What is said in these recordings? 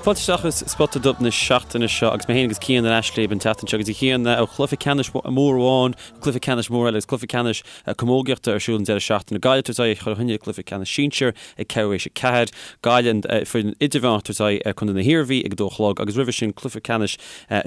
Fáilte isteach go Spota Dubh na seachtaine seo agus mé féin agus Cian ar ais libh an tseachtain seo agus a Chian ó chluiche ceannais mór amháin go cluiche ceannais mór eile agus cluiche ceannais camógaíochta ar siúl an deireadh seachtaine. Gaillimh ag tabhairt aghaidh ar Chill Chainnigh i gcluiche ceannais sinsir ag ceathrú théis 4, Gaillimh an foireann idirmheánach ag tabhairt aghaidh ar Contae na hIarmhí ag 2 a chlog agus roimhe sin cluiche ceannais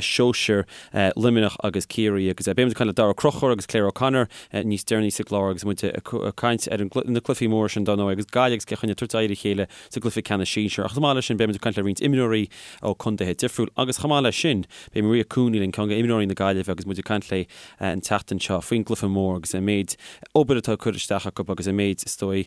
sóisir Luimneach agus Ciarraí agus beidh muid ag caint le Daragh Ó Conchúir agus Claire O'Connor níos deireanaí sa gclár agus muid ag caint ar na cluichí móra sin dar ndóigh agus Gaillimh agus Cill Chainnigh ag tabhairt aghaidh ar a chéile sa gcluiche ceannais sinsir. Ach chomh maith leis sin, beidh muid ag caint le roinnt imreoirí ó contaetha difriúil agus chomh maith leis sin, beidh Maria Cooney linn, ceann de imreoirí na Gaillimhe agus muid ag caint léi an tseachtain seo faoin gcluiche mór agus an méid obair atá curtha isteach acu agus an méid, is dóigh,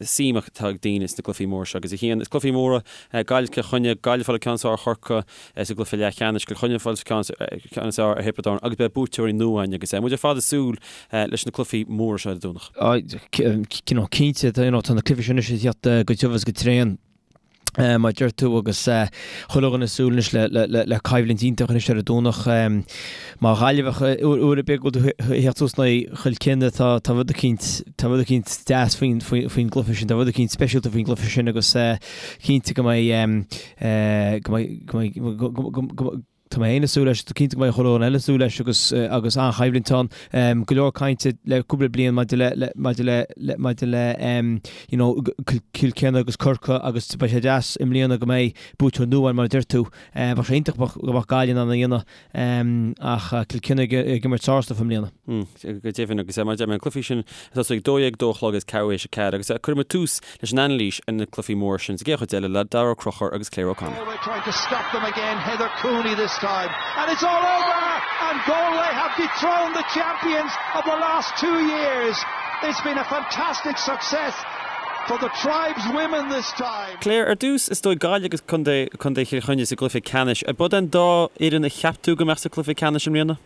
suim atá ag daoine sna gcluichí móra seo. Agus a Chian, is cluichí móra Gaillimh Cill Chainnigh, Gaillimh ag fáil an ceann is fearr ar Chorcaigh sa gcluiche leathcheannais, Cill Chainnigh ag fáil an ceann is fearr ar Thiobraid Árann agus beidh buaiteoirí nua againn agus muid ar fad ag súil leis na cluichí móra seo ar an Domhnach. Cinnte, tá na cluichí sin anois ag teacht go tiubh agus go tréan, mar a deir tú, agus chuile dhuine ag súil anois le coimhlint iontach anois ar an Domhnach. Mar Ghaillimheach, uair ar bith go bhfuil tú ag theacht suas in aghaidh Chill Chainnigh, tá rud eicínt, tá rud eicínt deas faoin gcluiche sin, tá rud eicínt speisialta faoin gcluiche sin agus cinnte go mbeidh, go mbeidh, go mbeidh, go mbeidh, Tá mé féin ag súil leis, cinnte go mbeidh chuile dhuine eile ag súil leis agus agus an-choimhlint ann. Go leor cainte le cúpla bliain maidir le le maidir le le maidir le you know Cill Chainnigh agus Corcaigh agus beidh sé deas i mbliana go mbeidh buaiteoir nua ann mar a deir tú. Bheadh sé iontach go mbeadh Gaillimh in ann a dhéanamh ach Cill Chainnigh ag imirt sár-stuif i mbliana. Go deimhin agus mar a deir mé an cluichí sin ag tosú ag 12, 2 a chlog agus ceathrú théis 4 agus cuirfidh muid tús leis an anailís ar na cluichí móra sin sa gcéad chuid eile le Daragh Ó Conchúir agus Claire O'Connor. Galway trying to stop them again, Heather Cooney this time and it's all over and Galway have dethroned the champions of the last two years. It's been a fantastic success for the tribes women this time. Claire, ar dtús, is dóigh Gaillimh agus Contae Contae Chill Chainnigh sa gcluiche ceannais. Ab iad an dá fhoireann a cheap tú go mbeadh sa chluiche ceannais i mbliana?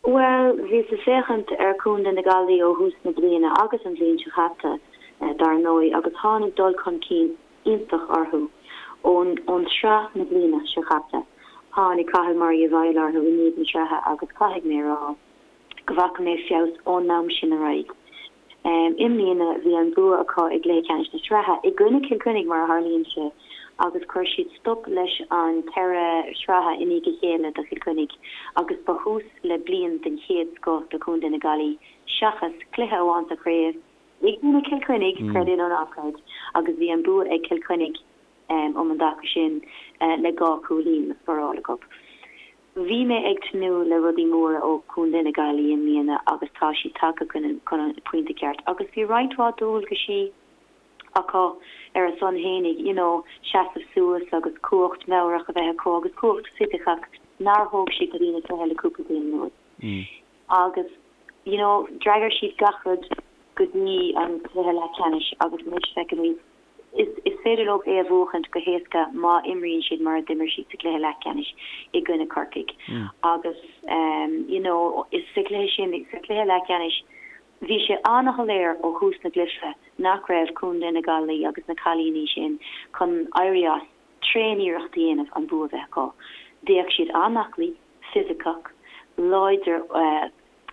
Bhuel, bhíos ag féachaint ar Chontae na Gaillimhe ó thús na bliana agus an bhliain seo chaite, dar ndóigh, agus tháinig dul chun cinn iontach orthu ón ón tsraith na bliana seo chaite. Tháinig Cathal Murray i bhfeighil orthu i ndiaidh na sraithe agus caithfidh mé a rá go bhfaca mé feabhas ón am sin ar aghaidh. I mbliana bhí an bua acu i gcluiche ceannais na sraithe, i gcoinne Cill Chainnigh mar a tharlaíonn sé, agus chuir siad stop leis an ceithre shraithe i ndiaidh a chéile do Chill Chainnigh agus ba thús le bliain den chéad scoth do Chontae na Gaillimhe seachas cluiche amháin sa chraobh i gcoinne Cill Chainnigh, creid é nó ná creid, agus bhí an bua ag Cill Chainnigh um an dtaca sin le 2 chúilín scóráilte acu. Bhí mé ag tnúth le rudaí móra ó Chontae na Gaillimhe i mbliana agus tá siad tagtha chun an pointe ceart agus bhí roinnt mhaith dualgaisí acu ar a son fhéinig, you know, seasamh suas agus cumhacht meabhrach a bheith acu agus cumhacht fisiceach nár thóg siad go dtí na cluiche le cúpla bliain anuas. Agus, you know, d'fhreagair siad gach rud go dtí an cluiche leathcheannais agus anois feicimid Is féidir leo é a bhuachaint go héasca má imríonn siad mar a d'imir siad sa gcluiche leathcheannais i gcoinne Corcaigh. Agus you know is sa chluiche sin, sa chluiche leathcheannais, bhí sé an-shoiléir ó thús na gcluiche nach raibh Contae na Gaillimhe agus na cailíní sin chun éirí as tréan-iarracht a dhéanamh an bua a bheith acu. D'fhéach siad an-aclaí, fisiceach, láidir,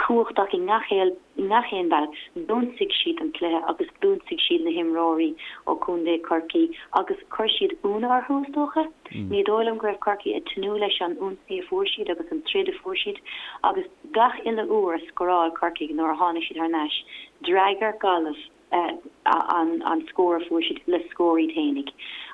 cumhachtach i ngach i ngach aon bhealach. D'ionsaigh siad an cluiche agus d'ionsaigh siad na himreoirí ó Chontae Chorcaí agus chuir siad ionadh orthu, is dócha. Ní dóigh liom go raibh Corcaigh ag tnúth leis an ionsaí a fuair siad agus an troid a fuair siad agus gach uile uair a scóráil Corcaigh nuair a tháinig siad thar n-ais, d'fhreagair Gaillimh. an scór a fuair siad le scór iad fhéinig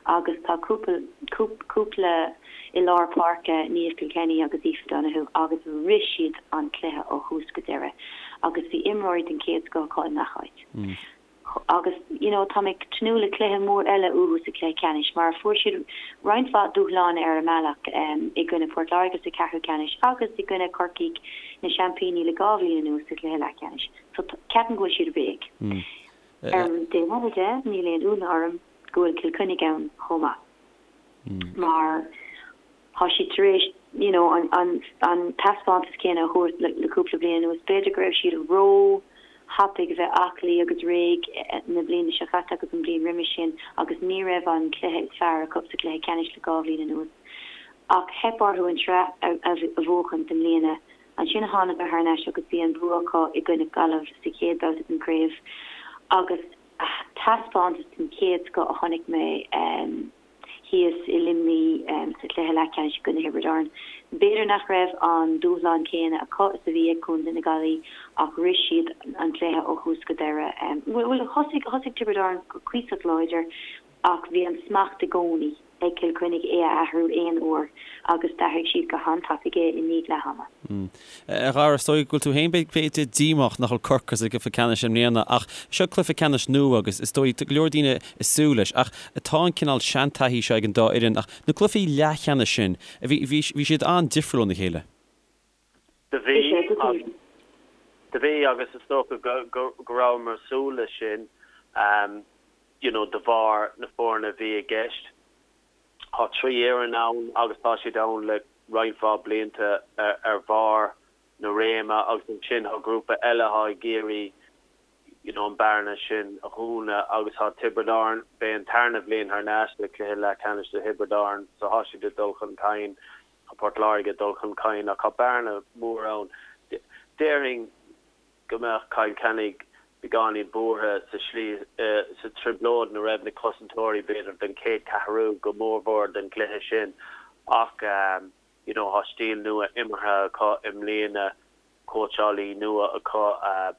agus tá cúpla cúpla i lár páirce, Niamh Kilkenny agus Aoife Donoghue agus rith siad an cluiche ó thús go deireadh agus bhí imreoirí den chéad scoth acu i ngach áit. Agus you know tá mé ag tnúth le cluiche mór eile uathu sa chluiche ceannais mar fuair siad roinnt mhaith dúshláin ar a mbealach i gcoinne Port Láirge sa cheathrú ceannais agus i gcoinne Corcaigh na seaimpíní le 2 bhliain anuas sa chluiche leathcheannais. So ceapaim go bhfuil siad réidh. Ar an dtaobh eile de, níl aon ionadh orm go bhfuil Cill Chainnigh ann chomh maith. Mar tá siad tar éis you know an an an taispeántas céanna a thabhairt le le cúpla bliain anuas. B'fhéidir go raibh siad ró thapaidh a bheith aclaí agus réidh na bliana seo chaite agus an bhliain roimis sin agus ní raibh an cluiche is fearr acu sa chluiche ceannais le 2 bhliain anuas. Ach theip orthu an tsraith a a bhuachan i mbliana. Ansin thánadar thar n-ais agus bhí an bua acu i gcoinne Gaillimh sa chéad babhta den chraobh agus taispeántas den chéad scoth a chonaic mé. thíos i Luimnigh sa chluiche leathcheannais i gcoinne Thiobraid Árann. B'fhéidir nach raibh an dúshlán céanna acu is a bhí ag Contae na Gaillimhe ach rith siad an cluiche ó thús go deireadh. Bhuel, thosaigh, thosaigh Tiobraid Árann go cuíosach láidir ach bhí an smacht i gcónaí ag Cill Chainnigh é a athrú aon uair agus d'athraigh siad go han-tapaidh é i ndiaidh leath ama. A Dhara, is dóigh go bhfuil tú féin b'fhéidir díomách nach bhfuil Corcaigh sa gcluiche ceannais i mbliana ach seo cluiche ceannais nua agus is dóigh tá go leor daoine ag súil leis ach tá an cineál seantaithí seo ag an dá fhoireann ach na cluichí leathcheannais sin, bhí, bhí, bhí siad an-difriúil óna chéile. Do bhí, do bhí agus is dócha go, go, go rabhamar ag súil leis sin you know de bharr na foirne a bhí i gceist. Tá 3 fhoireann ann agus tá siad ann le roinnt mhaith blianta ar bharr na réime agus ansin tá grúpa eile atá ag iarraidh you know an bearna sin a dhúnadh agus tá Tiobraid Árann, b'é an tarna bhliain thar n-ais le cluiche leathcheannais do Thiobraid Árann so tá siad ag dul chun cinn, tá Port Láirge ag dul chun cinn ach tá bearna mhór ann. Déarfainn go mbeadh Cill Chainnigh beagáinín buartha sa slí, sa trioblóid ina raibh na cosantóirí b'fhéidir don chéad cheathrú go mórmhór den gcluiche sin ach you know tá stíl nua imeartha acu i mbliana, cóitseálaí nua acu,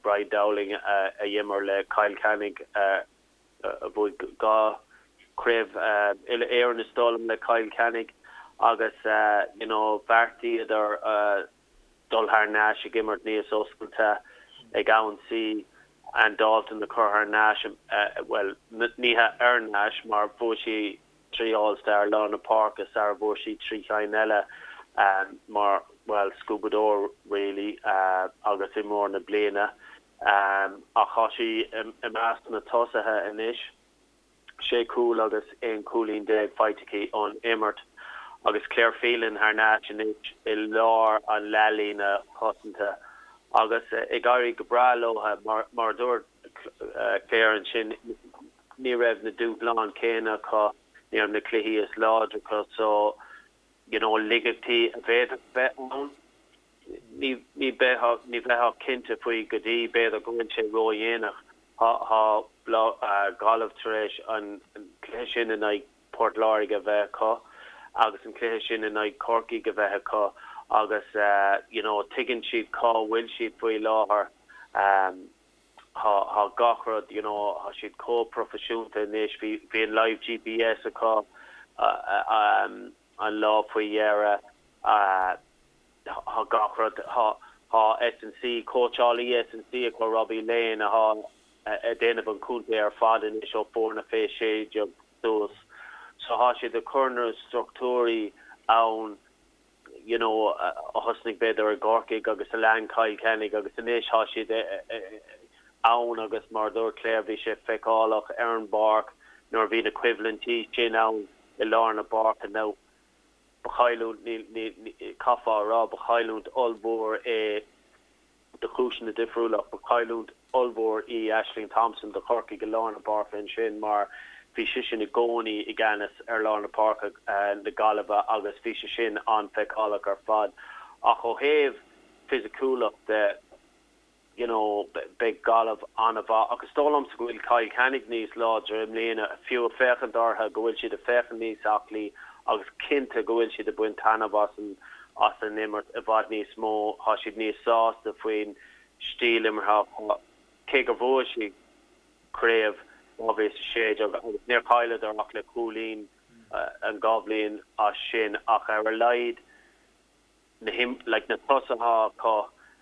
Brian Dowling a d'imir le Cill Chainnigh a bhuaigh 2 chraobh uile-Éireann is dóigh liom le Cill Chainnigh agus you know bheartaíodar dul thar n-ais ag imirt níos oscailte, ag ionsaí, Anne Dalton a chur thar n-ais, bhuel, ní hea ar n-ais mar bhuaigh sí 3 All Star lár na páirce sara bhfuair sí 3 chinn eile mar, bhuel, scuabadóir really agus imreoir na bliana ach tá sí i measc na tosaithe anois. 6 chúl agus 11 cúilín faighte aici ón imirt agus Claire Phelan thar n-ais anois i lár an leathlíne chosanta agus ag éirí go breá leo. Mar a dúirt Claire ansin, ní raibh na dúshláin céanna acu, ní raibh na cluichí is láidre acu so you know laigeachtaí a bhféadfadh bheith ann. Ní bheifeá cinnte faoi go dtí b'fhéidir go bhfuil sé ródhéanach. Tá Gaillimh tar éis an cluiche sin in aghaidh Port Láirge a bheith acu agus an cluiche sin in aghaidh Corcaigh a bheith acu agus you know tuigeann siad cá bhfuil siad faoi láthair. Tá gach rud you know tá siad chomh proifisiúnta anois. Bhí an live GPS acu an lá faoi dheireadh. Tá gach rud, tá S&C, cóitseálaí S&C acu, Robbie Lane, atá ag déanamh an chontae ar fad anois ó foirne fé 16 suas. So tá siad ag cur na struchtúirí ann you know a thosnaigh b'fhéidir i gCorcaigh agus a lean Cill Chainnigh agus anois tá siad ann agus mar a dúirt Claire bhí sé feiceálach ar an bpáirc nuair a bhí na coimhlintí sin ann i lár na páirce. Now Ba chailliúint, ní, chaithfeá a rá, ba chailliúint ollmhór é do chúiseanna difriúla ach ba chailliúint ollmhór í Ashling Thompson do Chorcaigh i lár na páirce ansin mar bhí sise i gcónaí i gceannas ar lár na páirce na Gaillimhe agus bhí sé sin an-fheiceálach ar fad. Ach ó thaobh fisiciúlacht de, you know, beidh Gaillimh an-mhaith ach is dóigh liomsa go bhfuil Cill Chainnigh níos láidre i mbliana, fiú ag féachaint orthu, go bhfuil siad ag féachaint níos aclaí agus cinnte go bhfuil siad ag baint taitneamh as an as an imirt i bhfad níos mó, tá siad níos sásta faoin stíl imeartha acu, cé gur bhuaigh siad craobh 2016 agus níor chailleadar ach le cúilín an dá bhliain as sin ach ar a laghad na like na tosaithe acu,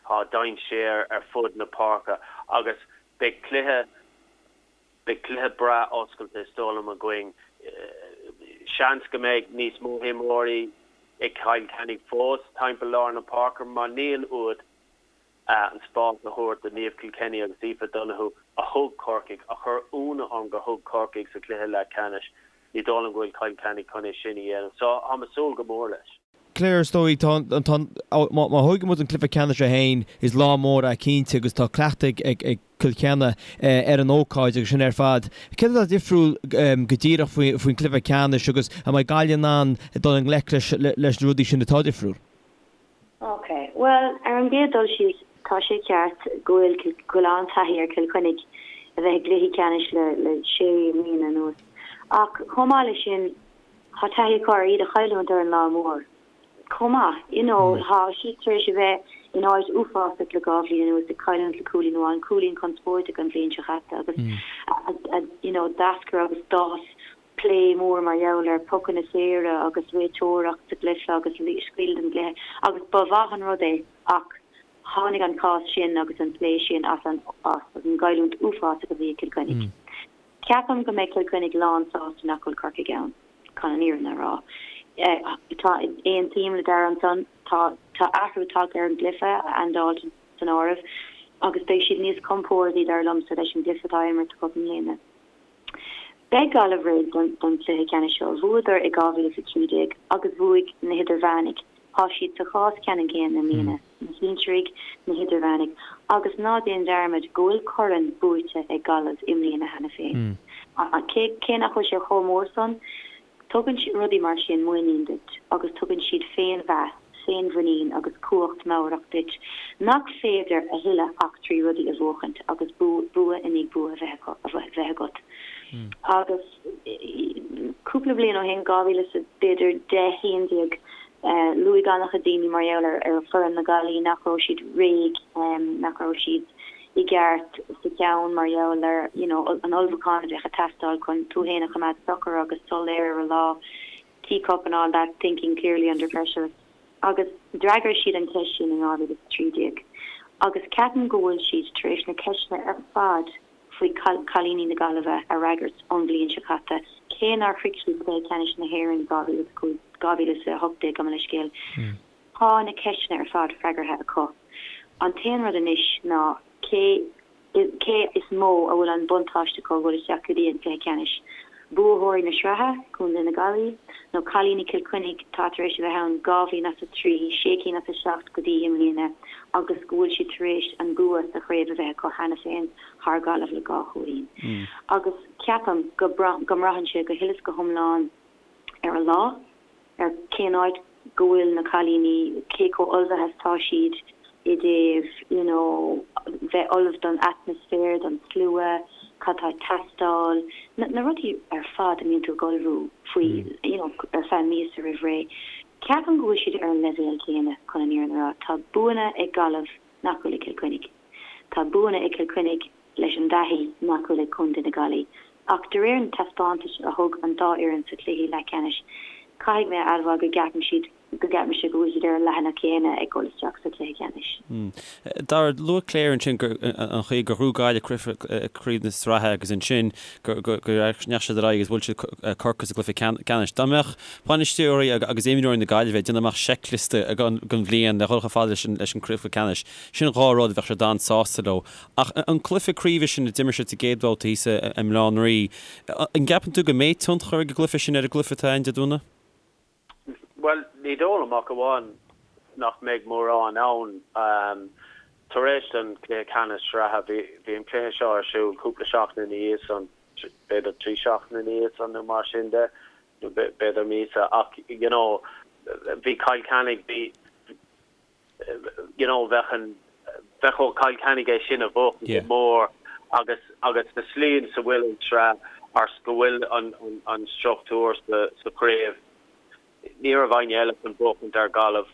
tá dainséar ar fud na páirce agus beidh cluiche, beidh cluiche breá oscailte is dóigh liom againn. Seans go mbeidh níos mó imreoirí ag Cill Chainnigh fós timpeall lár na páirce mar níl uait an spás a thabhairt do Niamh Kilkenny agus Aoife Donoghue a thug Corcaigh, a chuir ionadh orm gur thug Corcaigh sa chluiche leathcheannais. Ní dóigh liom go bhfuil Cill Chainnigh chun é sin a dhéanamh. So, táim ag súil go mór leis. Claire, is dóigh, tá, tá, má, má thógann muid an cluiche ceannais é féin, is lá mór é cinnte agus tá cleachtadh ag, ag Cill Chainnigh ar an ócáid agus sin ar fad. Céard atá difriúil go díreach faoi, faoin cluiche ceannais agus an mbeidh Gaillimh in ann dul i ngleic leis, leis na rudaí sin atá difriúil? Ok, bhuel, ar an gcéad dul síos, tá sé ceart go bhfuil, go bhfuil an-taithí ar Chill Chainnigh a bheith i gcluichí ceannais le, le sé mbliana anuas. Ach chomh maith leis sin. Tá taithí acu ar iad a chailliúint ar an lá mór chomh maith. You know, tá siad tar éis a bheith in áit uafásach le 2 bhliain anuas, ag cailliúint le cúilín amháin, cúilín conspóideach an bhliain seo chaite agus you know, d'eascair agus d'fhás plé mór mar gheall ar pocanna saora agus réiteoireacht sa gcluiche agus scaoileadh den gcluiche agus ba mhaith an rud é ach tháinig an cás sin agus an plé sin as an as an gcailliúint uafásach a bhí ag Cill Chainnigh. Ceapaim go mbeidh Cill Chainnigh lán sásta nach bhfuil Corcaigh ann, chun an fhírinne a rá. Tá, aontaím le Dara ansan, tá tá athrú tagtha ar an gcluiche, Anne Dalton san áireamh, agus beidh siad níos compórdaí, dar liomsa, leis an gcluiche atá á imirt acu i mbliana. Beidh Gaillimh réidh don chluiche ceannais seo. Bhuadar i 2013 agus bhuaigh na hidirmheánaigh. Tá siad sa chás ceannann céanna i mbliana, na sinsearaigh, na hidirmheánaigh agus ná déan dearmad go bhfuil corn buaite ag Gaillimh i mbliana cheana féin. Cé nach bhfuil sé chomh mór san, tugann rudaí mar sin muinín duit agus tugann siad féinmheas, féinmhuinín agus cumhacht meabhrach duit nach féidir a thuilleadh ach 3 rudaí a bhuachaint agus bua i ndiaidh bua a bheith agat. Agus cúpla bliain ó shin, 2000 is b'fhéidir 10, 11, luaigh an-chuid daoine mar gheall ar foireann na Gaillimhe nach raibh siad réidh, nach raibh siad i gceart sa cheann mar gheall ar you know an ullmhúchán a bheadh ag teastáil chun tú féin a choimeád socair agus soiléir ar an lá. Teacup and all that, thinking clearly under pressure agus d'fhreagair siad an cheist sin in 2013 agus ceapaim go bhfuil siad tar éis na ceisteanna ar fad faoi chailíní na Gaillimhe a fhreagairt ón bhliain seo caite, cé nár shroich siad cluiche ceannais na hÉireann 2005, 2018 gabh mo leithscéal. Tá na ceisteanna ar fad freagartha acu. An t-aon rud anois ná cé Cé is mó a bhfuil an buntáiste acu a dhul isteach go dtí an cluiche ceannais? Buaitheoirí na sraithe, Contae na Gaillimhe, nó cailíní Chill Chainnigh atá tar éis a bheith ann 2 bhliain as a 3, sé cinn as a 7 go dtí i mbliana agus go bhfuil siad tar éis an bua sa chraobh a bheith acu cheana féin thar Gaillimh le 2 chúilín. Agus ceapaim go go mbraitheann sé go huile is go hiomlán ar an lá. ar cén áit go bhfuil na cailíní, cé chomh ullmhaithe is atá siad i dtaobh you know bheith ullamh don atmaisféar, don slua, cad tá ag teastáil, na na rudaí ar fad a mbíonn tú ag ullmhú faoi you know ar feadh míosa roimh ré. Ceapaim go bhfuil siad ar an leibhéal céanna chun an fhírinne a rá. Tá buanna ag Gaillimh nach bhfuil ag Cill Chainnigh. Tá buanna ag Cill Chainnigh leis an dtaithí nach bhfuil ag Contae na Gaillimhe. Ach de réir na taispeántais a thug an dá fhoireann sa chluiche leathcheannais, caithfidh mé a admháil go gceapaim siad go gceapaimse go bhfuil siad ar an leathanach céanna ag dul isteach sa chluiche ceannais. Dara, luaigh Claire ansin gur an chaoi gur ghnóthaigh Gaillimh craobh na sraithe agus ansin go ndeachaigh siad ar aghaidh agus bhuail siad Corcaigh sa gcluiche ceannais. Dá mbeadh bainisteoirí agus imreoirí na Gaillimhe ag déanamh amach seicliosta don bhliain le dhul chomh fada leis an gcluiche ceannais, sin 2 rud a bheadh siad an-sásta leo. Ach an cluiche craoibhe sin a d'imir siad sa gcéad bhabhta thíos i mBaile Átha an Rí, an gceapann tú go mbeidh tionchar ag an gcluiche sin ar an gcluiche atá ann Dé Domhnaigh? Bhuel, ní dóigh liom ach amháin nach mbeidh mórán ann. Tar éis don chluiche ceannais sraithe, bhí an cluiche seo ar siúl cúpla seachtain ina dhiaidh san, b'fhéidir 3 seachtaine ina dhiaidh san nó mar sin de, nó b'fhéidir míosa, ach you know bhí Cill Chainnigh, bhí, you know bheadh an, bheadh ó Chill Chainnigh é sin a bhuachan go mór agus agus sa slí ina bhfuil an tsraith agus go bhfuil an an an struchtúr sa sa chraobh ní raibh éinne eile chun buachaint ar Ghaillimh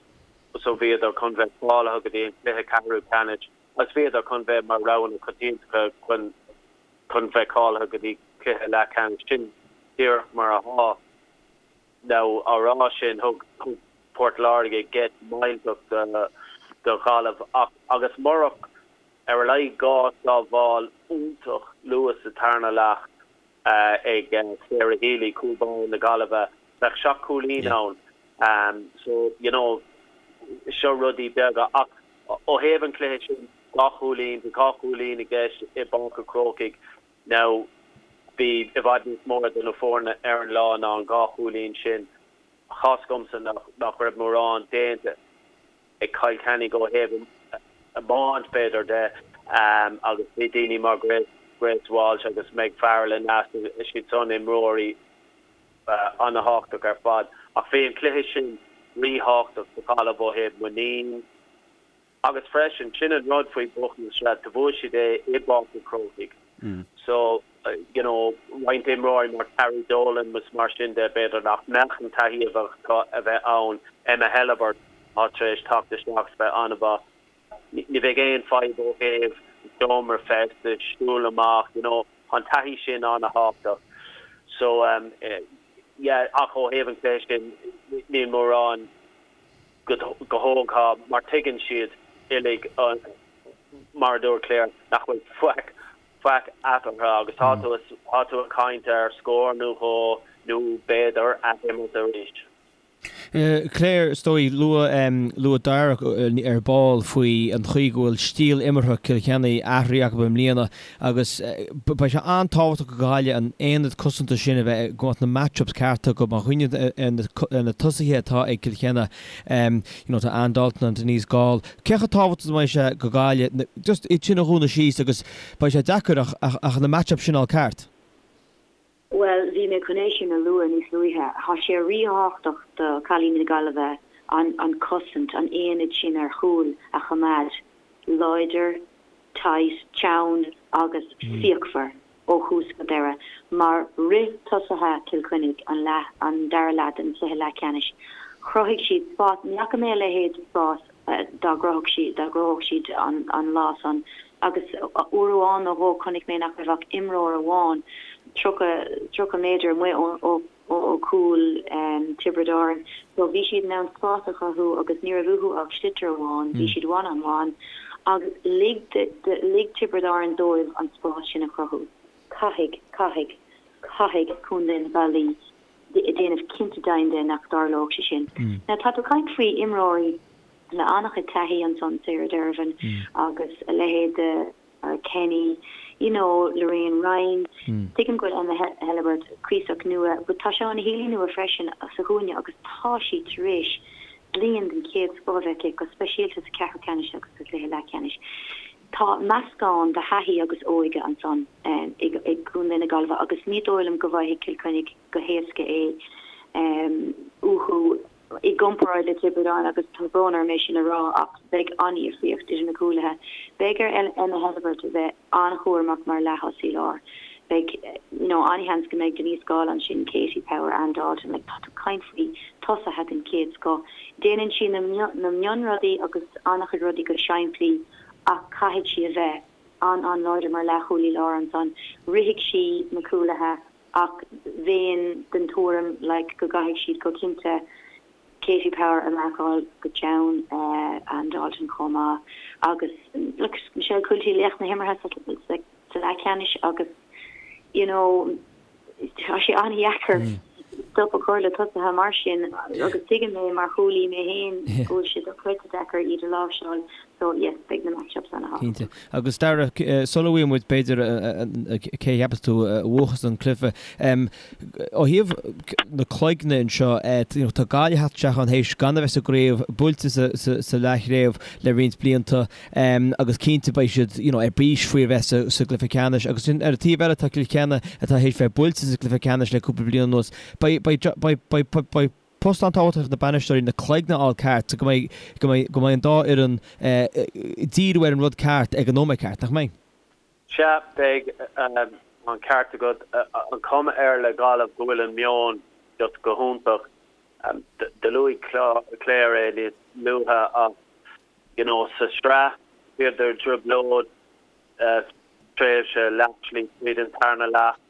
so bhíodar chun bheith cáilithe go dtí an cluiche ceathrú ceannais agus bhíodar chun bheith mar roghanna coitianta chun chun bheith cáilithe go dtí cluiche leathcheannais sin díreach mar atá. Now, á rá sin, thug Port Láirge geit millteach do Ghaillimh ach agus murach ar a laghad 2 sábháil iontach luath sa tarna leath ag Sarah Healy, cúl báire na Gaillimhe, bheadh 7 cúilín ann. So, you know, seo rudaí beaga ach ó thaobh an chluiche sin, 2 chúilín, bhí 2 chúilín i gceist i bPáirc an Chrócaigh. Now, bhí i bhfad níos mó idir na foirne ar an lá ná an 2 chúilín sin. Tá's agamsa nach raibh mórán déanta ag Cill Chainnigh ó thaobh iomáint, b'fhéidir, de agus bhí daoine mar Grace Walsh agus Meg Farrell aneas, siad san imreoirí ana-thábhachtach ar fad. Ach bhí an cluiche sin ríthábhachtach do Ghaillimh ó thaobh muinín, Agus freisin, sin an rud faoi buachan na sraithe, do bhuaigh siad é i bPáirc an Chrócaigh. So, you know, roinnt imreoirí mar Carrie Dolan is mar sin de, b'fhéidir nach mbeadh an taithí a bheadh acu a bheith ann. Emma Helebert atá tar éis teacht isteach is bheith an-mhaith. Ní bheidh aon fadhb ó thaobh seomra feistis, siúl amach, you know, tá an taithí sin an-thábhachtach. So, yeah, ach ó thaobh an chluiche sin, níl mórán go thógtha mar tuigeann siad uilig, mar a dúirt Claire, nach bhfuil faic, faic eatarthu agus tá tú, tá tú ag caint ar scór nó dhó nó b'fhéidir athimirt arís. Claire, is dóigh, luaigh, luaigh Darragh ar ball faoi an chaoi go bhfuil stíl imeartha Cill Chainnigh athraithe acu i mbliana agus beidh sé an-tábhachtach do Ghaillimh an aonad cosanta sin a bheith, go mbeadh na match-ups cearta acu má chuimhníonn ar na tosaithe atá ag Cill Chainnigh, you know, tá Anne Dalton and Denise Gaule. Cé chomh tábhachtach is a bheidh sé do Ghaillimh just iad sin a dhúnadh síos agus beidh sé deacair ach, ach, ach na match-ups sin a fháil ceart? Bhuel, bhí mé chun é sin a lua níos luaithe. Tá sé ríthábhachtach do chailíní na Gaillimhe an cosaint, an aonad sin ar chúl a choimeád láidir, tight, teann agus fíochmhar ó thús go deireadh. Mar rith tosaithe Chill Chainnigh an leath, an dara leath den chluiche leathcheannais, chruthaigh siad spás, ní fhaca mé a leithéid de spás dá gcruthódh siad, dá gcruthódh siad an lá san. Agus uair amháin nó dhó chonaic mé nach raibh ach imreoir amháin 30, 30 méadar amuigh ó, ó chúl Tiobraid Árann. So bhí siad in ann spás a chruthú agus ní raibh uathu ach sliotar amháin, bhí siad one on one agus lig, lig Tiobraid Árann dóibh an spás sin a chruthú. Caithfidh, caithfidh, caithfidh Contae na Gaillimhe déanamh cinnte deimhin de nach dtarlódh sé sin. Now tá tú ag caint faoi imreoirí le an-chuid taithí ansan, Sarah Dervan agus a leithéid de Sarah Kenny, you know, Lorraine Ryan. Tuigim go bhfuil Emma Helebert cuíosach nua but tá Shauna Healy nua freisin sa chúinne agus tá sí tar éis bliain den chéad scoth a bheith aici, go speisialta sa cheathrú ceannais agus sa chluiche leathcheannais. Tá meascán de thaithí agus óige ansan i gContae na Gaillimhe agus ní dóigh liom go bhfaighidh Cill Chainnigh go héasca é uathu i gcomparáid le Tiobraid Árann agus tá brón orm é sin a rá ach beidh an-dhifríocht idir na cúlaithe. Beidh ar Emma Helebert a bheith an-chúramach mar leath-thosaí láir. Beidh you know an-sheans go mbeidh Denise Gaule ansin, Katie Power, Anne Dalton, like tá tú ag caint faoi tosaithe den chéad scoth. Déanann sí na na mionrudaí agus an-chuid rudaí go simplí ach caithfidh sí a bheith an-an-láidir mar leathchúlaí láir ansan. Rithfidh sí na cúlaithe ach bheinn den tuairim like go gcaithfidh siad go cinnte Katie Power a mharcáil go teann, Anne Dalton chomh maith agus look Michelle Quilty laoch na himeartha sa sa leathcheannais agus you know tá sé an-dheacair stop a chur le tosaithe mar sin agus tuigim é mar chúlaí mé féin go bhfuil sé dochreidte deacair iad a láimhseáil so yes beidh na match-ups an-thábhachtach. Cinnte. Agus Darragh, sula bhfaighidh muid b'fhéidir cé a cheapas tú a bhuachas an cluiche, ó thaobh na cloigne anseo, tá Gaillimh ag teacht isteach ann théis gan a bheith sa gcraobh, buailte sa leathchraobh le roinnt blianta agus cinnte beidh siad you know ar bís faoi a bheith sa gcluiche ceannais agus sin ar an taobh eile tá Cill Chainnigh atá théis bheith buailte sa gcluiche ceannais le cúpla bliain anuas. Beidh beidh beidh beidh beidh post an-tábhachtach ag na bainisteoirí na cloigne a fháil ceart so go mbeidh go mbeidh go mbeidh an dá fhoireann ag díriú ar an rud ceart ag an nóiméad ceart, nach mbeidh? Sea, beidh an ceart agat. An chuma air le Gaillimh go bhfuil an meon just go hiontach. Do luaigh Claire é níos luaithe ach you know sa sraith bhíodar i dtrioblóid tréimhse leathshlí tríd an tarna leath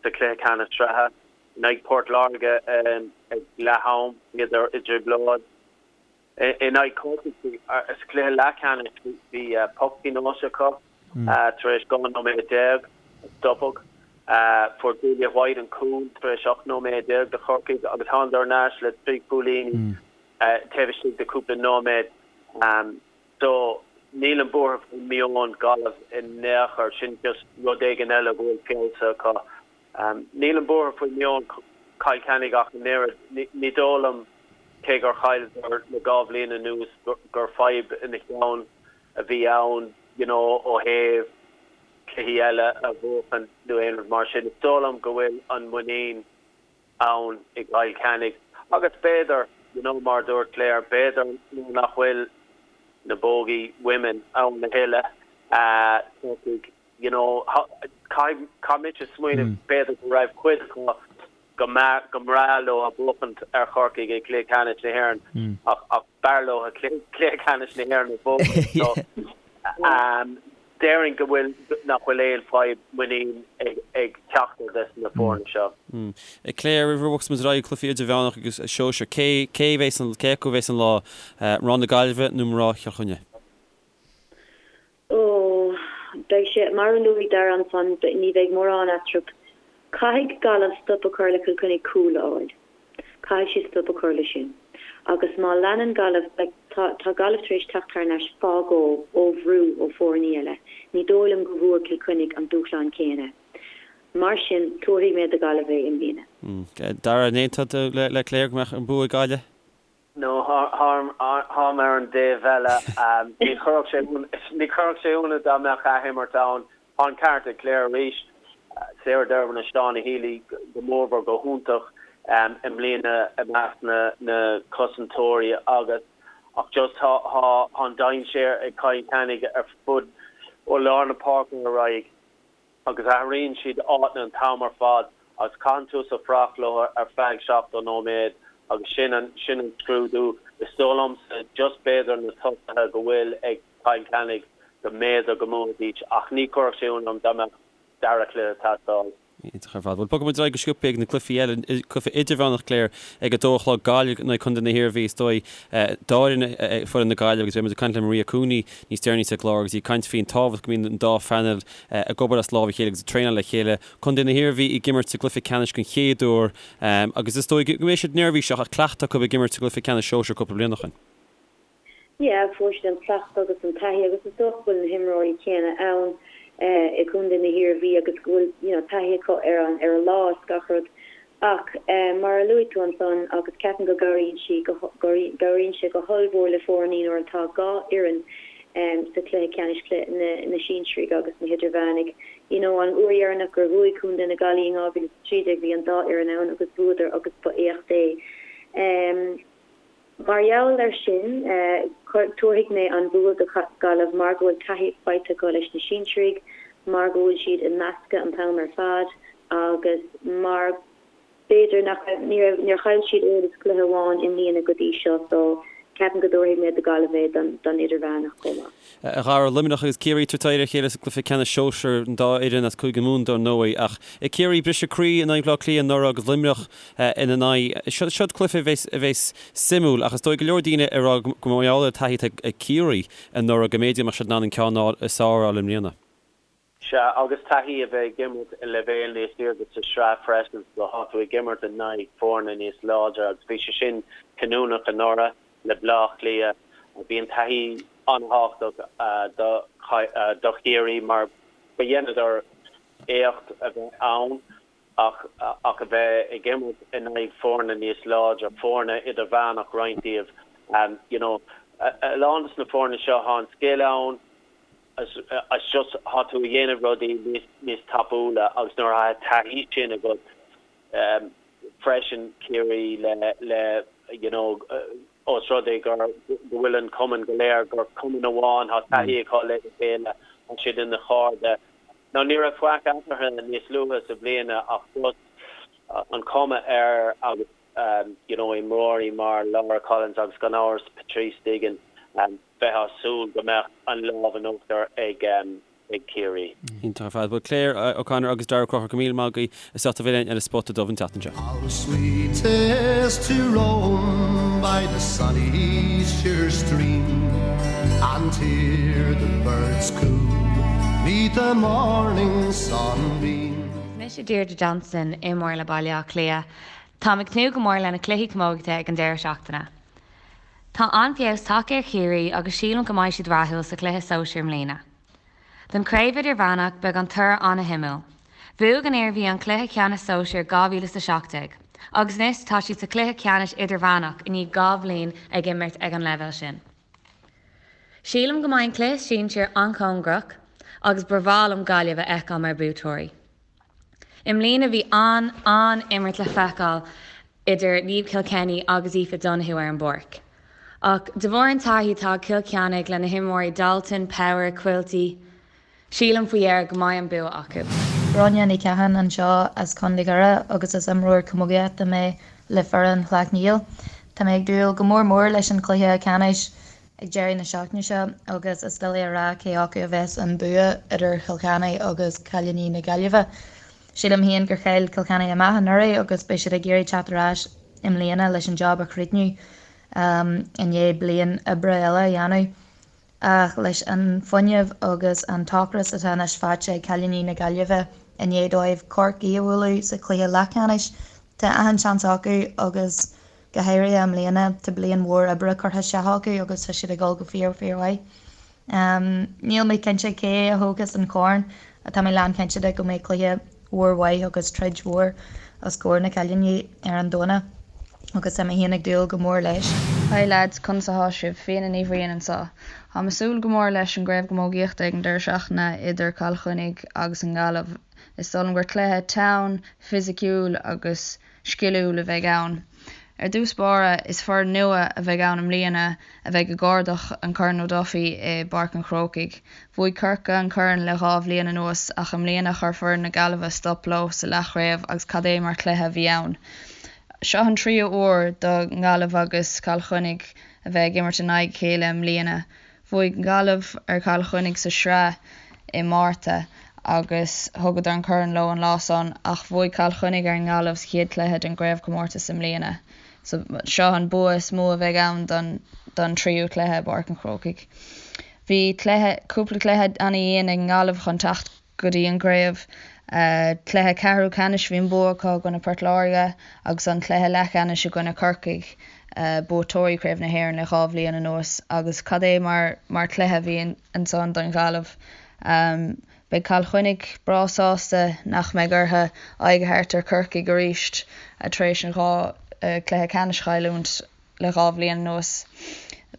sa chluiche ceannais sraithe. In aghaidh Port Láirge ag leath-am bhíodar i dtrioblóid. In aghaidh Chorcaigh sa chluiche leathcheannais bhí poc pionóis acu tar éis 12 nóiméad, stopadh. Fuair Julia White an cúl tar éis 18 nóiméad do Chorcaigh agus thánadar thar n-ais le 3 chúilíní taobh istigh de chúpla nóiméad. So, nílim buartha faoi meon Gaillimh in aon chor, sin just rud éigin eile go bhfuil feabhsaithe acu. Nílim buartha faoi meon Chill Chainnigh ach an oiread. Ní dóigh liom, cé gur chailleadar le 2 bhliain anuas, gur fadhb ina cheann a bhí ann, you know, ó thaobh cluichí eile a bhuachan nó aon rud mar sin. Is dóigh liom go bhfuil an muinín ann i gCill Chainnigh agus b'fhéidir, you know, mar a dúirt Claire, b'fhéidir nuair nach bhfuil na bogey women ann a thuilleadh, Corcaigh. You know, caithfidh, caithfidh mise smaoineamh b'fhéidir go raibh cuid acu go mba, go mbreá leo buachaint ar Chorcaigh i gcluiche ceannais na hÉireann ach, ach b'fhearr leo cluiche ceannais na hÉireann a bhuachaint. So, déarfainn go bhfuil, nach bhfuil aon fadhb muinín ag, ag ceachtar des na foirne seo. Claire, roimh a bhogfas muid ar aghaidh cluichí idirmheánach agus sóisir, cé, cé a bheas an, cé acu a bheas an lá, mná na Gaillimhe nó mná Chill Chainnigh? Ó, beidh sé, mar a luaigh Dara ansan, ní bheidh mórán eatarthu. Caithfidh Gaillimh stop a chur le Cill Chainnigh cúl a fháil. Caithfidh siad stop a chur le sin. Agus má leanann Gaillimh, like, tá, tá Gaillimh tar éis teacht thar n-ais fá dhó ó bhrú ó foirní eile. Ní dóigh liom go bhfuair Cill Chainnigh an dúshlán céanna. Mar sin, tabharfaidh mé do Ghaillimh é i mbliana. Dara, an aontóidh tú le Claire go mbeadh an bua ag Gaillimh? No, táim ar an dtaobh eile. Ní chuirfeadh sé, ní chuirfeadh sé ionadh dá mbeadh athimirt ann. Tá an ceart ag Claire arís. Sarah Dervan agus Shauna Healy go mórmhór go hiontach i mbliana i measc na cosantóirí agus ach just tá an dainséar ag Cill Chainnigh ar fud ó lár na páirce ar aghaidh. agus athraíonn siad áiteanna an t-am ar fad agus caitheann tusa fuireach leo ar feadh 70 nóiméad agus sin an, sin an scrúdú. Is dóigh liomsa just b'fhéidir na tosaithe go bhfuil ag Cill Chainnigh go mb'fhéidir go mbuafaidís ach ní chuirfeadh sé ionadh orm dá mbeadh dara cluiche ag teastáil. Iontach ar fad. Bhuel, bogfaidh muid ar aghaidh go sciobtha ag na cluichí eile, cluiche idirmheánach, Claire, ag a dó a chlog, Gaillimh in aghaidh Contae na hIarmhí, is dóigh, dá fhoireann é foireann na Gaillimhe agus beidh muid ag caint le Maria Cooney níos deireanaí sa gclár agus í ag caint faoin tábhacht go mbíonn an dá phainéal ag obair as lámh a chéile agus ag traenáil le chéile. Contae na hIarmhí ag imirt sa gcluiche ceannais den chéad uair agus is dóigh go mbeidh siad neirbhíseach ach cleachtadh acu ag imirt sa gcluiche ceannais sóisir cúpla bliain ó shin. Yeah, fuair siad an cleachtadh agus an taithí agus is dócha go bhfuil na himreoirí céanna ann i gContae na hIarmhí agus go bhfuil you know taithí acu ar an ar an lá is gach rud. Ach mar a luaigh tú ansan agus ceapaim go gcabhraíonn sí go gcabhraíonn sé go hollmhór le foirní nuair atá dhá fhoireann sa chluiche ceannais na na sinsearaigh agus na hidirmheánaigh. You know an uair dheireanach gur bhuaigh Contae na Gaillimhe in 2013 bhí an dá fhoireann ann agus bhuadar agus ba éacht é. Mar gheall air sin, tabharfaidh mé an bua do Ghaillimh mar go bhfuil taithí faighte acu leis na sinsearaigh, mar go bhfuil siad i meascadh an t-am ar fad agus mar b'fhéidir nach raibh, ní raibh, níor chaill siad oiread is cluiche amháin i mbliana go dtí seo so ceapaim go dtabharfaidh mé do Ghaillimh é don idirmheánach chomh maith. A Dhara, Luimneach agus Ciarraí ag tabhairt aghaidh ar a chéile sa gcluiche ceannais sóisir, an dá fhoireann as Cúige Mumhan dar ndóigh. Ach Ciarraí, briseadh croí in aghaidh Bhaile Átha Cliath anuraidh agus Luimneach ina n-aghaidh. Seo cluiche a bheas suimiúil ach is dóigh go leor daoine ag rá go mar gheall ar an taithí atá ag Ciarraí anuraidh go mb'fhéidir go mbeadh siad in ann an ceann is fearr a fháil i mbliana. Sea, agus taithí a bheith ag imirt i leibhéal níos airde sa sraith freisin, so tá tú ag imirt in aghaidh foirne níos láidre agus bhí sé sin cinniúnach anuraidh le Baile Átha Cliath. Bhí an taithí an-thábhachtach do Chiarraí mar ba dheineadar éacht a bheith ann ach ach a bheith ag imirt in aghaidh foirne níos láidre, foirne idirmheánach roinnt díobh. You know, a lán de na foirne seo, tá an scil ann, It's just tá tú ag déanamh rudaí níos níos tapúla agus nuair atá taithí sin agat freisin Ciarraí le le you know os rud é gur go bhfuil an cumann go léir gur cumann amháin tá taithí acu le chéile tá siad ina chairde. Now ní raibh faic eatarthu níos luaithe sa bhliana ach just an cuma air agus you know imreoirí mar Laura Collins agus gan amhras Patrice Diggin bheifeá ag súil go mbeadh an lámh in uachtar ag Ciarraí. Iontach ar fad. Bhuel Claire O'Connor agus Darragh Ó Conchúir, go míle maith agaibh as ucht a bheith linn ar an Spota Dubh an tseachtain seo. How sweet 'tis to roam by the sunny sure stream And hear the birds coo 'neath the morning sunbeam. Is mise Deirdre Johnston, imreoir le Baile Átha Cliath. Táim ag tnúth go mór le na cluichí camógaíochta ag an deireadh seachtaine. Tá an-fheabhas tagtha ar Chiarraí agus sílim go mbeidh siad rathúil sa chluiche sóisir i mbliana. Don chraobh idirmheánach, beidh an toradh an-shuimiúil. Bhuaigh an Iarmhí an cluiche ceannais sóisir 2017 agus anois tá siad sa chluiche ceannais idirmheánach i ndiaidh 2 bhliain ag imirt ag an leibhéal sin. Sílim go mbeidh an cluiche sinsir an-chóngarach agus ba bhreá liom Gaillimh a fheiceáil mar buaiteoirí. I mbliana bhí an-an-imirt le feiceáil idir Niamh Kilkenny agus Aoife Donoghue ar an bpáirc. Ach de bharr an taithí atá ag Cill Chainnigh le na himreoirí Dalton, Power, Quilty. Sílim faoi dheireadh go mbeidh an bua acu. Gráinne Ní Chatháin anseo as Contae Dhoire agus is imreoir camógaíochta mé le foireann Shleacht Néill. Tá mé ag dúil go mór mór leis an chluiche ceannais ag deireadh na seachtaine seo agus is doiligh a rá cé acu a bheas an bua idir Chill Chainnigh agus cailíní na Gaillimhe. Sílim féin gur chaill Cill Chainnigh amach anuraidh agus beidh siad ag iarraidh teacht ar ais i mbliana leis an job a chríochnú i ndiaidh bliain oibre eile a dhéanamh. Ach leis an fuinneamh agus an t-ocras atá anois faighte ag cailíní na Gaillimhe i ndiaidh dóibh Corcaigh a bhualadh sa chluiche leathcheannais, tá achan seans acu agus go háirithe i mbliana tá bliain mhór oibre curtha isteach acu agus tá siad ag dul go fíor fíor mhaith. Níl mé cinnte cé a thógfas an corn ach tá mé lán cinnte de go mbeidh cluiche mhór mhaith agus troid mhór os comhair na cailíní ar an Domhnach agus tá mé féin ag dúil go mór leis. Hi lads, conas athá sibh? Fiona Ní Bhriain anseo. Táim ag súil go mór leis an gCraobh Camógaíochta ag an deireadh seachtaine idir Cill Chainnigh agus an Ghaillimh. Is dóigh liom gur cluiche teann, fisiciúil agus sciliúil a bheidh ann. Ar dtús báire, is foireann nua a bheidh ann i mbliana a bheidh ag cuardach an Corn O'Duffy i bPáirc an Chrócaigh. Bhuaigh Corcaigh an corn le dhá bhliain anuas ach i mbliana chuir foireann na Gaillimhe stop leo sa leathchraobh agus cad é mar chluiche a bhí ann. Seo an tríú huair do Ghaillimh agus Cill Chainnigh a bheith ag imirt in aghaidh a chéile i mbliana. Bhuaigh Gaillimh ar Chill Chainnigh sa sraith i Márta agus thugadar an corn leo an lá san ach bhuaigh Cill Chainnigh ar an nGaillimh sa chéad chluiche den gcraobhchomórtas i mbliana. So seo an bua is mó a bheidh ann don don tríú cluiche i bPáirc an Chrócaigh. Bhí cluiche, cúpla cluiche ana-dhian ag an nGaillimh chun teacht go dtí an gcraobh. Cluiche ceathrú ceannais bhí an bua acu i gcoinne Port Láirge agus an cluiche leathcheannais i gcoinne Corcaigh, buaiteoirí Chraobh na hÉireann le dhá bhliain anuas agus cad é mar mar chluiche a bhí ansan don Ghaillimh. Beidh Cill Chainnigh breá sásta nach mbeidh orthu aghaidh a thabhairt ar Chorcaigh arís tar éis an dhá chluiche ceannais a chailliúint le dhá bhliain anuas.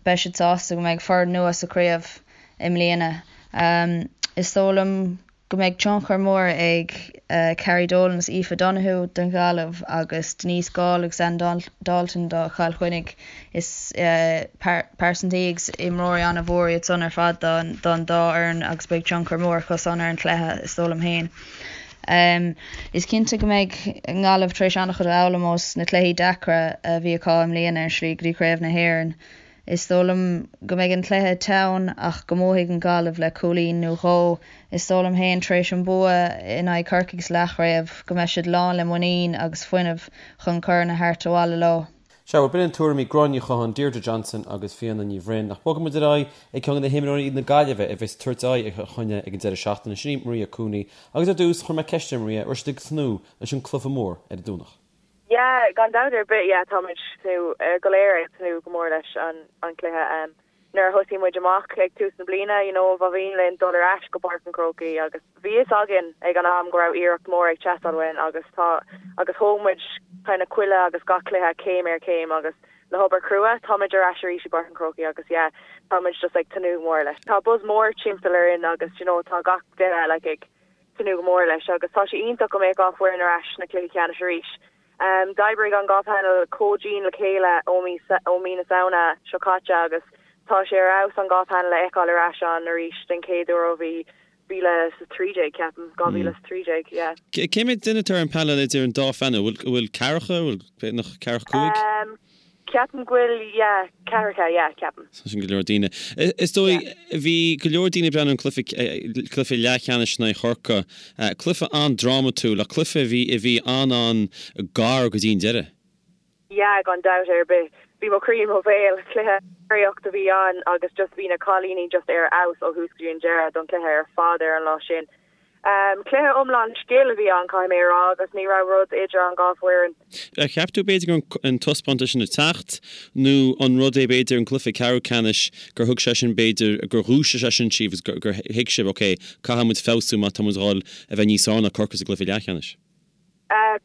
Beidh siad sásta go mbeidh foireann nua sa chraobh i mbliana. Is dóigh liom go mbeidh tionchar mór ag Carrie Dolan agus Aoife Donoghue don Ghaillimh agus Denise Gaule agus Anne Dalton do Chill Chainnigh. Is pearsantaí agus imreoirí an-mhór iad san ar fad don dá fhoireann agus beidh tionchar mór acu san ar an chluiche, is dóigh liom féin. Is cinnte go mbeidh an Ghaillimh tar éis an-chuid a fhoghlaim ós na cluichí deacra a bhí acu i mbliana ar an slí go dtí Craobh na hÉireann. Is dóigh liom go mbeidh an cluiche teann ach go mbuafaidh an Ghaillimh le cúilín nó dhó. Is dóigh liom féin, tar éis an bua in aghaidh Chorcaigh sa leathchraobh, go mbeidh siad lán le muinín agus fuinneamh chun corn a thabhairt abhaile leo. Sea, bhuel, b'in tuairimí Gráinne Ní Chatháin, Deirdre Johnson agus Fiona Ní Bhroin. Ach bogfaidh muid ar aghaidh ag ceann de na himreoirí na Gaillimhe a bheas ag tabhairt aghaidh ar Chill Chainnigh ag an deireadh seachtaine, sin í Maria Cooney. Agus ar dtús, chuir mé ceist ar Maria, raibh siad ag tnúth leis an cluiche mór ar an Domhnach. Yeah, gan dabht ar bith, yeah, táimid tnúth, go léir ag tnúth go mór leis an an cluiche. Nuair a thosaigh muid amach ag tús na bliana, you know, ba mhian linn dul ar ais go Páirc an Chrócaigh agus bhí fhios againn ag an am go raibh iarracht mór ag teastáil uainn agus tá, agus thóg muid kind of chuile agus gach cluiche céim ar chéim agus le hobair chrua, táimid ar ais arís i bPáirc an Chrócaigh agus yeah, táimid just ag tnúth go mór leis. Tá buzz mór timpeall orainn agus you know, tá gach duine like ag tnúth go mór leis agus tá sé iontach go mbeadh dhá foireann ar ais sna cluichí ceannais arís. D'oibrigh an dhá panel chomh dian le chéile ó mí ó mí na Samhna seo caite agus tá sé ar fheabhas an dhá panel a fheiceáil ar ais ann arís den chéad uair ó bhí 2013, ceapaim, 2013, yeah. Cé mhéad duine atá ar an panel idir an dá phanel? Bhfuil bhfuil ceathracha, bhfuil b'fhéidir ceathracha cúig? Ceapaim go bhfuil, yeah, ceathracha, yeah, ceapaim. Sin go leor daoine. Is dóigh, bhí go leor daoine ag breathnú ar an cluiche, cluiche leathcheannais in aghaidh Chorcaí. Cluiche an-drámatúil, ach cluiche a bhí, a bhí an-an-gar go dtí an deireadh. Yeah, gan dabht ar bith. Bhí mo chroí i mo bhéal. Cluiche draíochta a bhí ann agus just bhí na cailíní just ar fheabhas ó thús go dtí an deireadh don chluiche ar fad ar an lá sin. Cluiche iomlán scil a bhí ann, caithfidh mé a rá, agus ní raibh rud idir an dhá foireann. Ar cheap tú b'fhéidir go raibh an taispeántas sin ag teacht nó an rud é b'fhéidir an cluiche ceathrú ceannais gur thug sé sin b'fhéidir gur dhúisigh sé sin sibh agus gur thuig sibh ok caithfidh muid feabhsú má tá muid ag dul a bheith níos fearr ná Corcaigh sa gcluiche leathcheannais?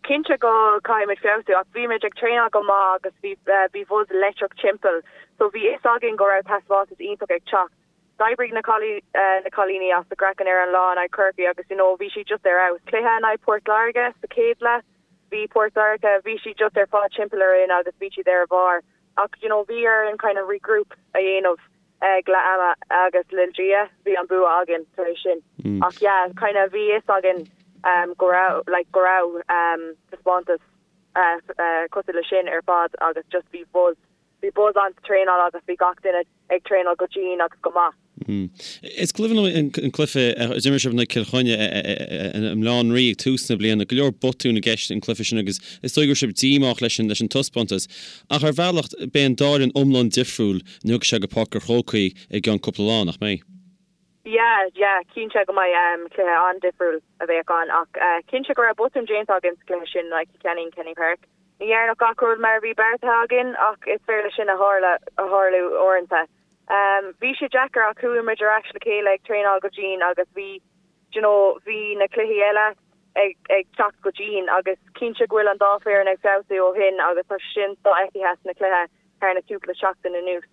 Cinnte go caithfidh muid feabhsú ach bhí muid ag traenáil go maith agus bhí bhí buzz leictreach timpeall so bhí fhios againn go raibh taispeántas iontach ag teacht. D'oibrigh na na cailíní as a gcraiceann ar an lá in aghaidh Chorcaí agus you know bhí siad just ar fheabhas. Cluiche in aghaidh Port Láirge sa chéad leath, bhí Port Láirge, bhí siad just ar fad timpeall orainn agus bhí siad ar a bharr. Ach you know bhí orainn kind of regroup a dhéanamh. Ag leath ama agus le Dia bhí an bua againn tar éis sin. Ach yeah, kind of bhí fhios againn go raibh like go raibh taispeántas cosúil le sin ar fad agus just bhí buzz, bhí buzz ann sa traenáil agus bhí gach duine ag traenáil go dian agus go maith. Is cuimhin liom an cluiche a d'imir sibh in aghaidh Cill Chainnigh i mBaile Átha an Rí ag tús na bliana. Go leor botún i gceist an cluiche sin agus is dóigh go raibh sibh díomách leis an taispeántas. Ach ar bhealach, beidh an dá fhoireann iomlán difriúil nuair a thiocfaidh sé go Páirc an Chrócaigh i gceann cúpla lá, nach mbeidh? Yeah, yeah, cinnte go mbeidh cluiche an-difriúil a bheadh ann ach cinnte go raibh botún déanta againn sa chluiche sin in aghaidh Cill Chainnigh in Kenny Park. Ní dhearnadh gach rud mar a bhí beartaithe againn ach is féidir leis sin a tharlú uaireanta. Bhí sé deacair ach chuaigh muid ar ais le chéile ag traenáil go dian agus bhí, d'you know, bhí na cluichí eile ag ag teacht go dian agus cinnte go bhfuil an dá foireann ag feabhsú ó shin agus tá sin sofheicthe sna cluiche thar na cúpla seachtain anuas.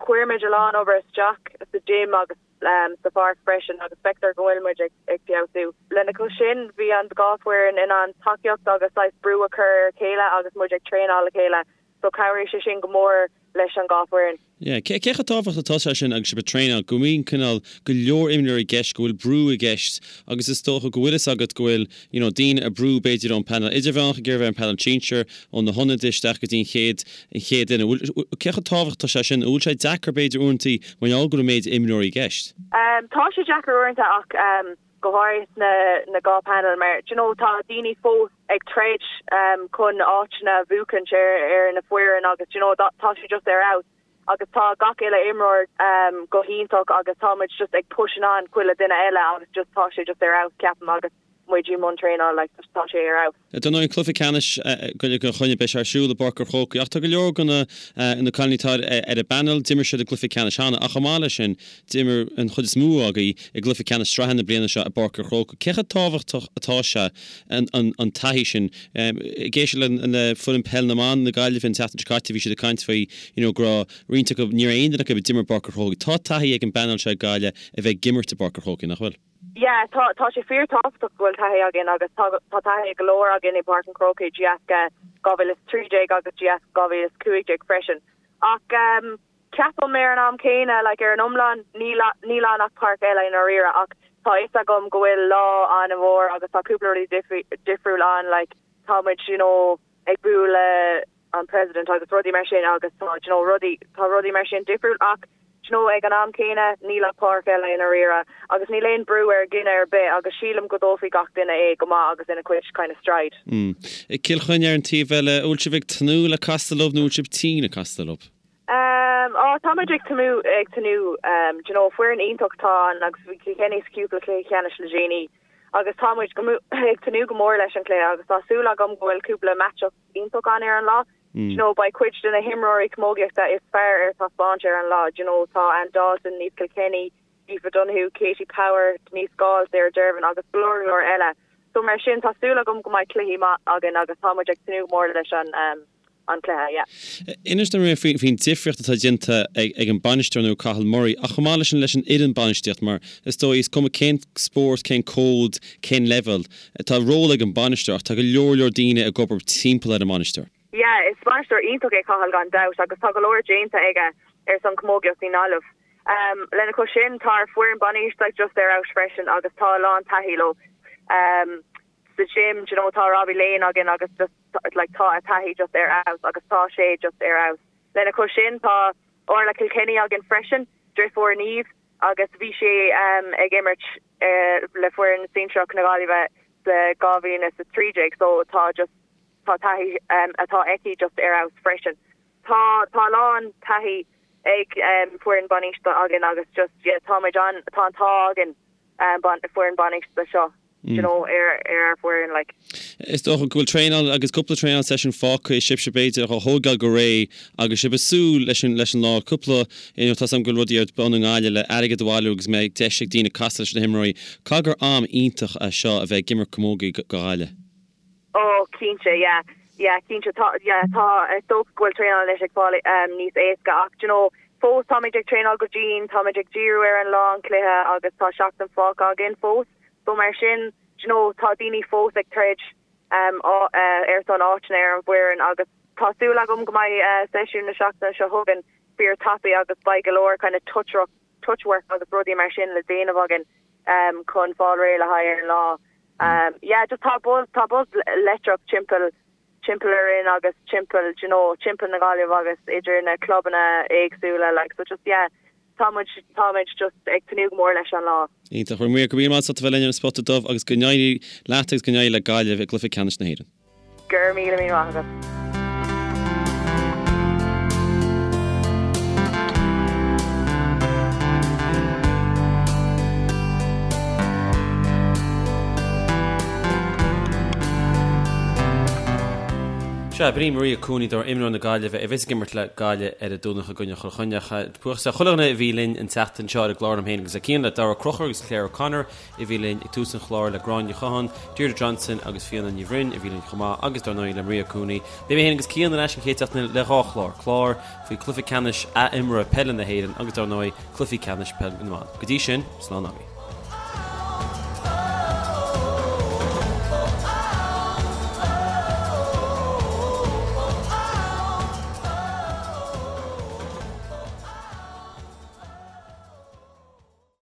Chuir muid a lán obair isteach sa gym agus sa pháirc freisin agus feictear go bhfuil muid ag ag feabhsú. Lena chois sin, bhí an dhá foireann in ann tacaíocht agus saghas brú a chur ar a chéile agus muid ag traenáil le chéile so chabhraigh sé sin go mór leis an dhá foireann. Yeah. Cé chomh tábhachtach atá sé sin agus sibh ag traenáil, go mbíonn cineál go leor imreoirí i gceist, go bhfuil brú i gceist agus is dócha go bhfuil fhios agat go bhfuil you know daoine ag brú b'fhéidir ón panel idirmheánach ag iarraidh bheith ar an panel sinsir, ó na hionadaithe isteach go dtí an chéad an chéad duine. Bhfuil, cé chomh tábhachtach atá sé sin? An bhfuil sé deacair b'fhéidir uaireantaí mar gheall go bhfuil an méid imreoirí i gceist? Tá sé deacair uaireanta ach go háirithe sna na dhá panel mar do you know tá daoine fós ag troid chun áiteanna a bhuachaint ar ar na foireann agus do you know tá sé just ar fheabhas agus tá gach uile imreoir go hiontach agus tá muid just ag pushing on chuile duine eile agus just tá sé just ar fheabhas ceapaim agus muid i mbun traenáil like just tá sé ar fheabhas. Dar ndóigh an cluiche ceannais Gaillimh Cill Chainnigh beidh sé ar siúl i bPáirc an Chrócaigh ach tá go leor de na na cailíní atá ar an bpainéal d'imir siad i gcluiche ceannais cheana ach chomh maith leis sin D'imir an chuid is mó agaibh i gcluiche ceannais sraithe na bliana seo i bPáirc an Chrócaigh. Cé chomh tábhachtach atá sé an taithí sin? Ag éisteacht le foireann peil na mban na Gaillimhe an tseachtain seo caite bhí siad ag caint faoi you know go raibh roinnt acu, ní raibh aon duine acu a d'imir i bPáirc an Chrócaigh. Tá taithí ag an bpainéal seo ag Gaillimh a bheith ag imirt i bPáirc an Chrócaigh, nach bhfuil? Yeah, tá, tá sé fíor tábhachtach go bhfuil taithí againn agus tá, tá taithí ag go leor againn i bPáirc an Chrócaigh de dheasca 2013 agus de dheasca 2015 freisin. Ach ehm, Ceapaim ar an am céanna, like ar an iomlán, níl níl ann ach páirc eile i ndáiríre ach tá fhios agam go bhfuil lá an-mhór agus tá cúpla rudaí difriúil ann like tá muid you know ag bualadh le an president agus rudaí mar sin agus tá you know rudaí tá rudaí mar sin difriúil ach you know ag an am céanna níl ach páirc eile i ndáiríre agus níl aon brú ar dhuine ar bith agus sílim go dtógfaidh gach duine é go maith agus ina cuid kind of stride. Mm. Cill Chainnigh ar an taobh eile, an bhfuil sibh ag tnúth le castáil leo nó an bhfuil sibh tinn ag castáil leo? Ehm, á, tá muid ag tnúth, ag tnúth, ehm, do you know, foireann iontach atá ann agus bhí Kilkenny sa cúpla cluiche ceannais le déanaí agus tá muid go, ag tnúth go mór leis an cluiche agus tá súil agam go bhfuil cúpla match-up iontach ann ar an lá. Do you know, beidh cuid de na himreoirí camógaíochta is fearr ar taispeáint ar an lá, do you know, tá Anne Dalton, Niamh Kilkenny, Aoife Donoghue, Katie Power, Denise Gaule, Sarah Dervan agus go leor go leor eile. So mar sin tá súil agam go mbeidh cluichí maith againn agus tá muid ag tnúth go mór leis an, ehm, an cluiche, yeah. Inis dom faoin difríocht atá déanta ag an bainisteoir nua Cathal Murray ach chomh maith leis sin leis an fhoireann bainistíocht mar is dóigh is cuma cén spórt, cén cód, cén leibhéal, tá ról ag an bainisteoir ach tá go leor leor daoine ag obair timpeall ar an mbainisteoir. Yeah, is bainisteoir iontach é Cathal gan dabht agus tá go leor déanta aige ar son camógaíocht i nGaillimh. Lena chois sin tá ár foireann bainistíochta just ar fheabhas freisin agus tá a lán taithí leo. Sa gym, do you know, tá Robbie Lane againn agus just like tá a taithí just ar fheabhas agus tá sé just ar fheabhas. Lena chois sin tá Orla Kilkenny againn freisin, driofúr Niamh agus bhí sí ag imirt le foireann sinsearach na Gaillimhe sa 2013 so tá just tá taithí atá aici just ar fheabhas freisin. Tá tá a lán taithí ag foireann bainistíochta againn agus just yeah tá muid an tá an t-ádh againn foireann bainistíochta seo you know ar ar ár bhfoireann like. Is dócha go bhfuil traenáil agus cúpla traenáil session fágtha ag sibhse b'fhéidir a thógáil go réidh agus sibh ag súil leis an leis an lá cúpla you know tá 's agam go bhfuil rudaí ar bun i nGaillimh le airgead a bhailiú agus mbeidh deis ag daoine casadh leis na himreoirí. Caithfidh gur am iontach é seo a bheith ag imirt camógaí go Gaillimh. Oh cinnte yeah yeah cinnte tá yeah tá is dócha go bhfuil traenáil anois ag fáil níos éasca ach do you know fós táimid ag traenáil go dian táimid ag díriú ar an lá an cluiche agus tá seachtain fágtha againn fós so mar sin do you know tá daoine fós ag troid ar son áiteanna ar an bhfoireann agus tá súil agam go mbeidh seisiún na seachtaine seo chugainn. fíor tapaidh agus beidh go leor kind of touch touch work agus rudaí mar sin le déanamh againn chun fáil réidh le haghaidh ar an lá. Yeah just tá buzz tá buzz leictreach timpeall timpeall orainn agus timpeall do you know timpeall na Gaillimhe agus idir na clubanna éagsúla like so just yeah tá muid táimid just ag tnúth go mór leis an lá. Iontach. Bhuel Maria, go raibh míle maith agat as ucht a bheith linn ar an Spota Dubh agus go n-éirí leat agus go n-éirí le Gaillimh i gcluiche ceannais na hÉireann. Go raibh míle míle maith agat. Sea, b'in í Maria Cooney, dar imreoir na Gaillimhe, a bheas ag imirt le Gaillimh ar an Domhnach i gcoinne Chill Chainnigh. Buíochas le chuile dhuine a bhí linn an tseachtain seo ar an gclár liom féin agus le Cian, le Daragh Ó Conchúir agus Claire O'Connor, a bhí linn ag tús an chláir, le Gráinne Ní Chatháin, Deirdre Johnson agus Fiona Ní Bhroin a bhí linn chomh maith agus dar ndóigh le Maria Cooney. Beidh mé féin agus Cian ar ais an chéad seachtain eile le dhá chlár, clár faoi chluiche ceannais ath-imeartha peile na hÉireann agus dar ndóigh cluichí ceannais peil na mban. Go dtí sin, slán agaibh.